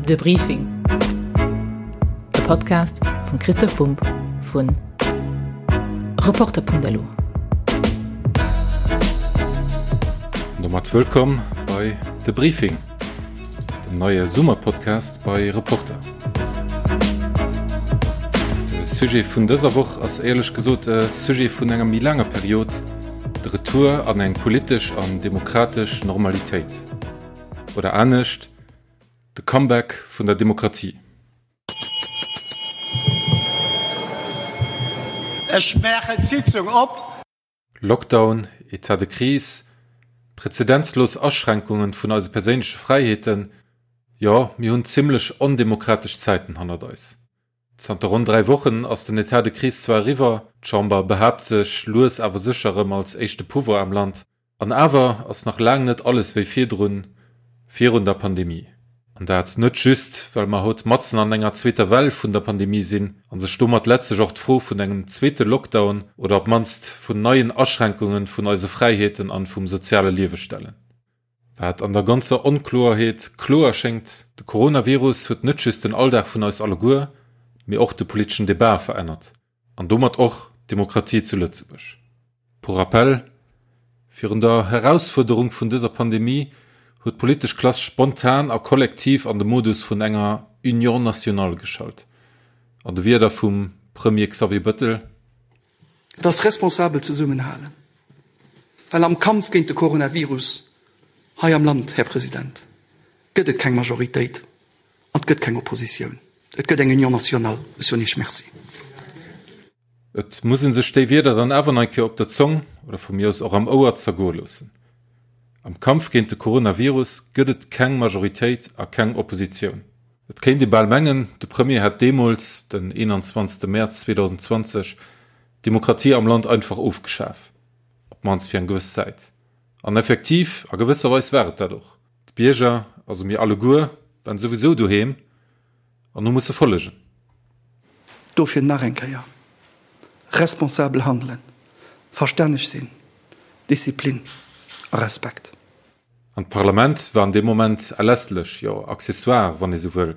De Briefing, e Podcast vum Christoph Bumb vu Reporter.lu. An domat wëllkomm bei De Briefing, dem neie Summerpodcast bei Reporter. De Sujet vun dëser Woch ass éierlech gesot e Sujet vun enger méi laanger Period, de Retour an eng politesch an demokratesch Normalitéit. Oder anescht, de Comeback vun der Demokratie. Ech maachen d'Sitzung op. Lockdown, Etat de crise, prezedenzlos Aschränkungen vun eise perséinleche Fräiheeten, jo, mir hunn zimmlech ondemokratesch Zäiten hannert eis. Zanter ronn 3 Wochen ass den Etat de crise zwar eriwwer, d'Chamber behaapt sech lues awer sécher erëm als éischte Pouvoir am Land, An awer ass nach laang net alles wéi virdrun, virun der Pandemie. An dat net just, well mer haut matzen an enger zweeter Well vun der Pandemie sinn a sech domat letztlech och d'Fro vun engem zweete Lockdown oder op d'mannst vun neien Aschränkunge vun eise Fräiheeten an vum soziale Liewe stellen. Wat an der ganzer Onkloerheet kloer schéngt, De Coronavirus huet net just den Alldag vun eis alleguer, mee och de politeschen Debat verännert. An domat och d'Demokratie zu Lëtzebuerg. Pour rappel, Virun der Herausfuerderung vun dëser Pandemie huet d'politesch Klass spontan a kollektiv an de Modus vun enger Union nationale geschalt. An de Wierder vum Premier Xavier Bëttel. Et ass responsabel zesummenhalen, well am Kampf géint de Coronavirus hei am Land, Här President, gëtt et keng Majoritéit. An et gëtt keng Oppositioun, et gëtt eng Union nationale. Ech soen Iech Merci. Et muss ee sech déi Wierder dann awer nach eng Kéier op der Zong, oder vu mir aus och am Ouer, zergoe loossen. Am Kampf géint de Coronavirus gëtt et keng Majoritéit a keng Oppositioun. Et kéint ee bal mengen, de Premier hätt deemools, den 21 Mäerz 2020, d'Demokratie am Land einfach ofgeschaf, op d'mannst fir eng gewëss Zäit. An effektiv, a gewësser Weis war et dat och. D'Bierger, also mir alleguer, waren souwisou doheem an hu musse follegen. Dofir nach eng Kéier, responsabel handelen, verstänneg sinn, Disziplin a Respekt. An d'Parlament war an deem Moment erlässlech, jo accessoire, wann ee sou wëll.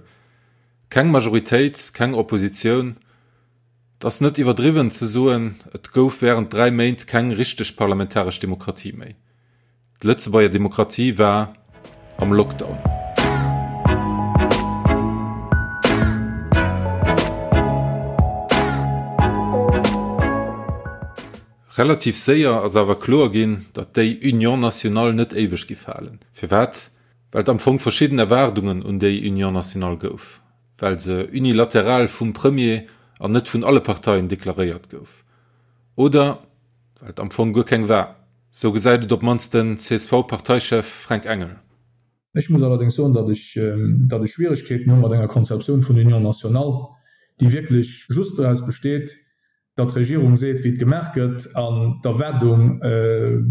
Keng Majoritéit, keng Oppositioun. Et ass net iwwerdriwwen ze soen, et gouf während 3 Méint keng richteg parlamentaresch Demokratie méi. D'Lëtzebuerger Demokratie war am Lockdown. Relativ séier ass awer kloer ginn, datt déi Union nationale net éiweg giff halen. Firwat? Well et am Fong verschidden Erwaardungen un déi Union nationale gouf, well se unilateral vum Premier an net vun alle Parteien deklaréiert gouf, oder well et am Fong guer keng war. Sou gesäit et op d'mannst den CSV-Parteichef Fränk Engel. Ech muss allerdéngs soen, datt ech, datt ech Schwieregkeeten hu mat enger Konzeptioun vun Union nationale, déi wierklech just doraus besteet, datt d'Regierung seet, wéi et gemaach gëtt, an d'Erwaardung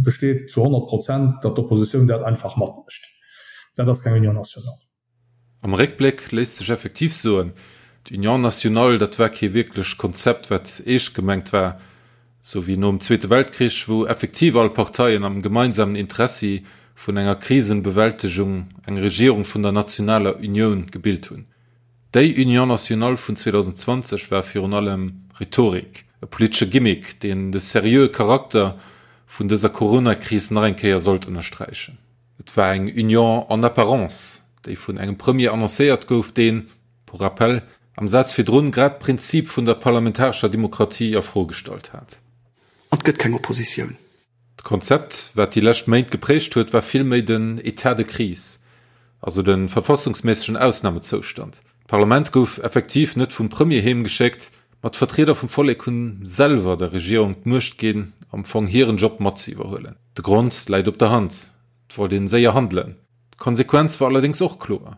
besteet zu 100 Prozent, datt d'Oppositioun dat einfach matmécht. Dat ass keng Union nationale. Am Réckbléck léisst sech effektiv soen, d'Union nationale, dat war kee wierklecht Konzept, wat eescht gemengt war, sou wéi nom Zweete Weltkrich, wou effektiv all Parteien am gemeinsamen Interessi vun enger Krisenbewältegung eng Regierung vun der nationaler Unioun gebilt hunn. Déi Union nationale vun 2020 war virun allem Rhetorik, e politesche Gimmick, deen de seriöe Charakter vun dëser Coronakris nach eng Kéier sollt ënnersträichen. Et war eng Union en apparence, déi vun engem Premier annoncéiert gouf, deen, pour rappel, am Saz virdrun grad d'Prinzip vun der parlamentarescher Demokratie a Fro gestallt hat. An et gëtt keng Oppositioun. D'Konzept, wat déi lescht Méint geprägt huet, war vill méi den État de crise, also de verfassungsméissegen Ausnamezoustand. D'Parlament gouf effektiv net vum Premier heem geschéckt, ma d'Vertrieder vum Vollek hunn selwer der Regierung d'Muecht ginn, am Fong hiren Job mat ze iwwerhuelen. De Grond läit op der Hand, Et wollt een séier handelen. D'Konsequenz war allerdéngs och kloer,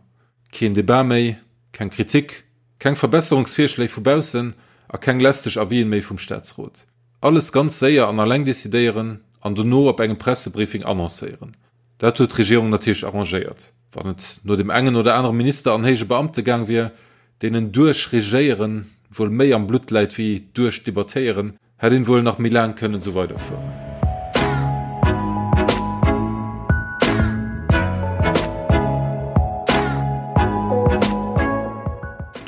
Keen Debat méi, keng Kritik, keng Verbesserungsvirschléi vu baussen a keng lästeg Avisen méi vum Staatsrot. Alles ganz séier an alleng decidéieren an dono op engem Pressebriefing annoncéieren. Dat huet d'Regierung natierlech arrangéiert. Wann et no dem engen oder anere Minister an héije Beamte gaang wier, deenen duerchregéieren wuel méi am Blutt läit wéi duerchdebattéieren, hätt een wuel nach méi laang kënnen esou weiderfueren.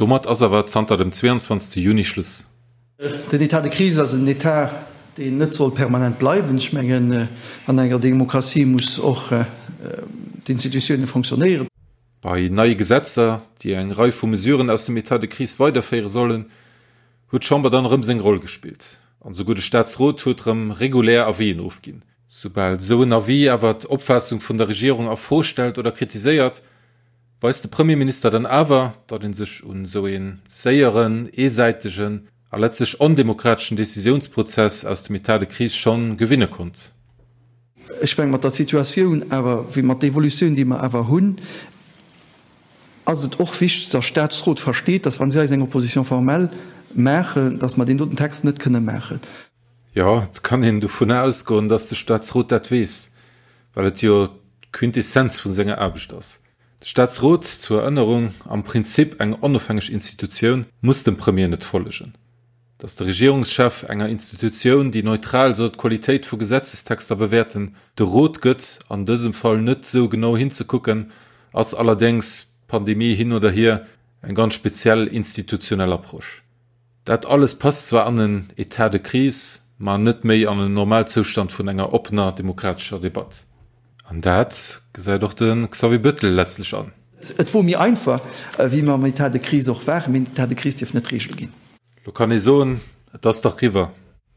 Domat ass awer zanter dem 22 Juni Schluss. Den État de crise ass en État, deen net soll permanent bleiwen. Ech mengen, an enger Demokratie muss och d'Institutione fonctionnéieren. Bei neie Gesetzer, déi eng Rei vu Mesuren aus dem État de crise weiderféiere sollen, huet d'Chamber dann erëm seng Roll gespillt. An esouguer de Staatsrot huet erëm regulär Avisen ofginn. Soubal esou en Avis awer d'Opfaassung vun der Regierung a Fro stellt oder kritiséiert, weist de Premierminister dann awer, datt ee sech un esou ee séieren, eesäitegen a letztlech ondemokrateschen Decisiounsprozess aus dem État de crise schonn gewinne konnt. Ech mengen, mat der Situatioun awer, wéi mat der Evolutioun, déi mer awer hunn, ass et och wichteg, datt Statsrot versteet, datt, wa si eis eng Opposition formelle maachen, datt mer deen doten Text net kënne maachen. Jo, et kann een dovunner ausgoen, datt de Statsrot dat weess, well et jo d'Quintessenz vu senger Aarbecht ass. De Statsrot, zur Erënnerung, am Prinzip eng onofhängeg Institutioun, muss dem Premier net follegen. Datt de Regierungschef enger Institutioun, déi neutral soll d'Qualitéit vu Gesetzestexter bewäerten, de Rot gëtt, an dësem Fall net esou genau hinzekucken, ass allerdéngs, Pandemie hin oder hier, eng ganz speziell institutionell Approche. Dat alles passt zwar an en État de crise, ma net méi an en Normalzoustand vun enger oppener demokratescher Debatt. An dat gesäit och de Xavier Bettel letztlech an. Et wor méi einfach, wéi mer am État de crise och waren, mee den État de crise dierf net d'Regel ginn. Lo kann ee soen, et ass dach riwwer,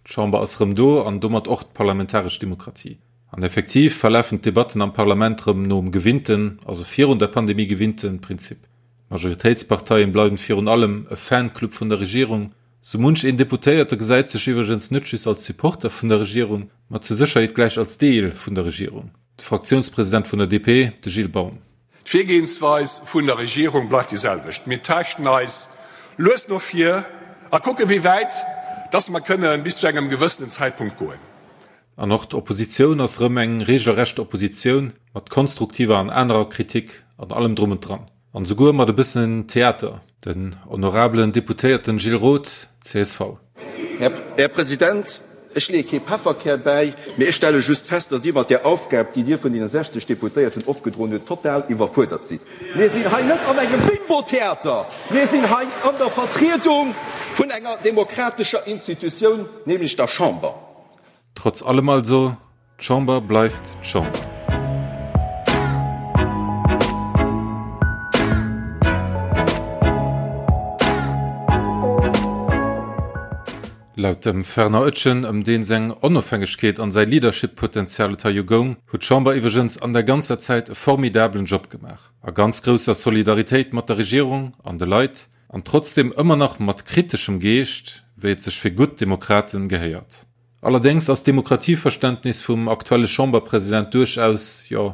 d'Chamber ass rëm do an domat och d'parlamentaresch Demokratie. An effektiv verlafen d'Debatten am Parlament rëm nom gewinnten, also virun der Pandemie gewinnten, Prinzip. D'Majoritéitsparteien bleiwen virun allem e Fanclub vun der Regierung. Sou munch een Deputéierte gesäit sech iwwregens net just als Supporter vun der Regierung, ma zur Sécherheet gläich als Deel vun der Regierung. De Fraktiounspresident vun der DP, de Gilles Baum. D'Virgehensweis vun der Regierung bleift déi selwecht. Mir taaschten eis lues no vir a kucken, wéi wäit dass mer kënne bis zu engem gewëssenen Zäitpunkt goen. An och d'Oppositioun ass rëm eng regelrecht Oppositioun, mat konstruktiver an anerer Kritik an allem drum und dran. An esouguer mat e bëssen Theater. Den honorabelen Deputéierten Gilles Roth, csv. Här President, ech leeë kee Pefferkär bäi, mee ech stelle just fest, dass Dir mat där Aufgab, déi Dir vun deene 60 Deputéierten opgedroen hutt, total iwwerfuerdert sidd. Mir sinn hei net an engem Bimbo-Theater, mir sinn hei an der Vertriedung vun enger demokratescher Institutioun, nämlech der Chamber. Trotz allem also, d'Chamber bleift d'Chamber. Laut dem Fernand Oetjen, ëm deen seng Onofhängegkeet an säi Leadership-Potential et hei jo goung, huet d'Chamber iwwregens an der ganzer Zäit e formidablen Job gemaach, a ganz grousser Solidaritéit mat der Regierung an de Leit, an trotzdem ëmmer nach mat kriteschem Geescht, wéi et sech fir gutt Demokraten gehéiert. Allerdéngs ass d'Demokratieverständnis vum aktuelle Chamberpresident duerchaus, jo,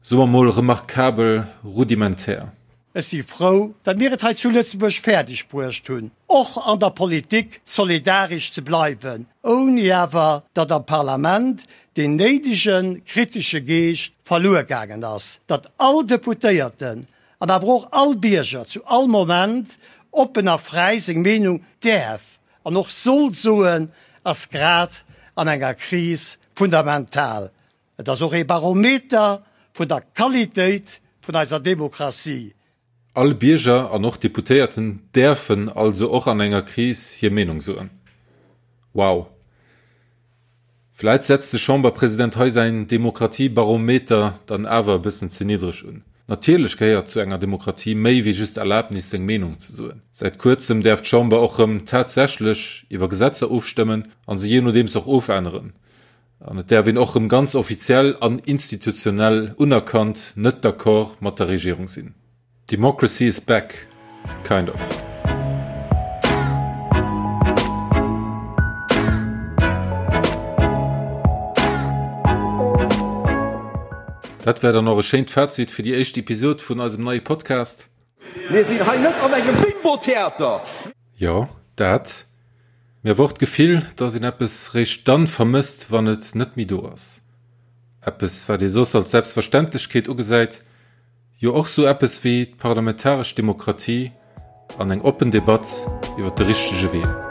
soe mer mol remarkabel rudimentär. Ech si frou, datt mir et hei zu Lëtzebuerg fäerdeg bruecht hunn, och an der Politik solidaresch ze bleiwen, ouni awer datt am Parlament deen néidege kritesche Geescht verluer gaangen ass, datt all Deputéierten an awer och all Bierger zu all Moment oppen a fräi seng Meenung däerf an och soll soen, ass grad an enger Kris fundamental. Et ass och ee Barometer vun der Qualitéit vun eiser Demokratie. All Bierger an och Deputéierten däerfen also och an enger Kris hir Meenung soen. Wow! Vläit setzt de Chamberpresident hei säin Demokratiebarometer dann awer e bëssen ze niddreg un. Natierlech gehéiert zu enger Demokratie méi wéi just d'Erlaabnis seng Meenung ze soen. Säit kuerzem däerf d'Chamber och rëm tatsächlech iwwer Gesetzer ofstëmmen an se jee nodeems och ofänneren. An et däerf een och rëm ganz offiziell an institutionell unerkannt net d'accord mat der Regierung sinn. Democracy is back, kind of. Dat war dann och e schéint Fazit fir déi éischt Episod vun eisem neie Podcast. Mir sinn hei net an engem Bimbo-Theater! Jo, dat. Mee awer och d'Gefill, dass een eppes réischt dann vermësst, wann et net méi do ass. Eppes, wat ee soss als Selbstverständlechkeet ugesäit. Jo och sou eppes wéi d'parlamentaresch Demokratie an eng oppen Debatt iwwer de richtege Wee.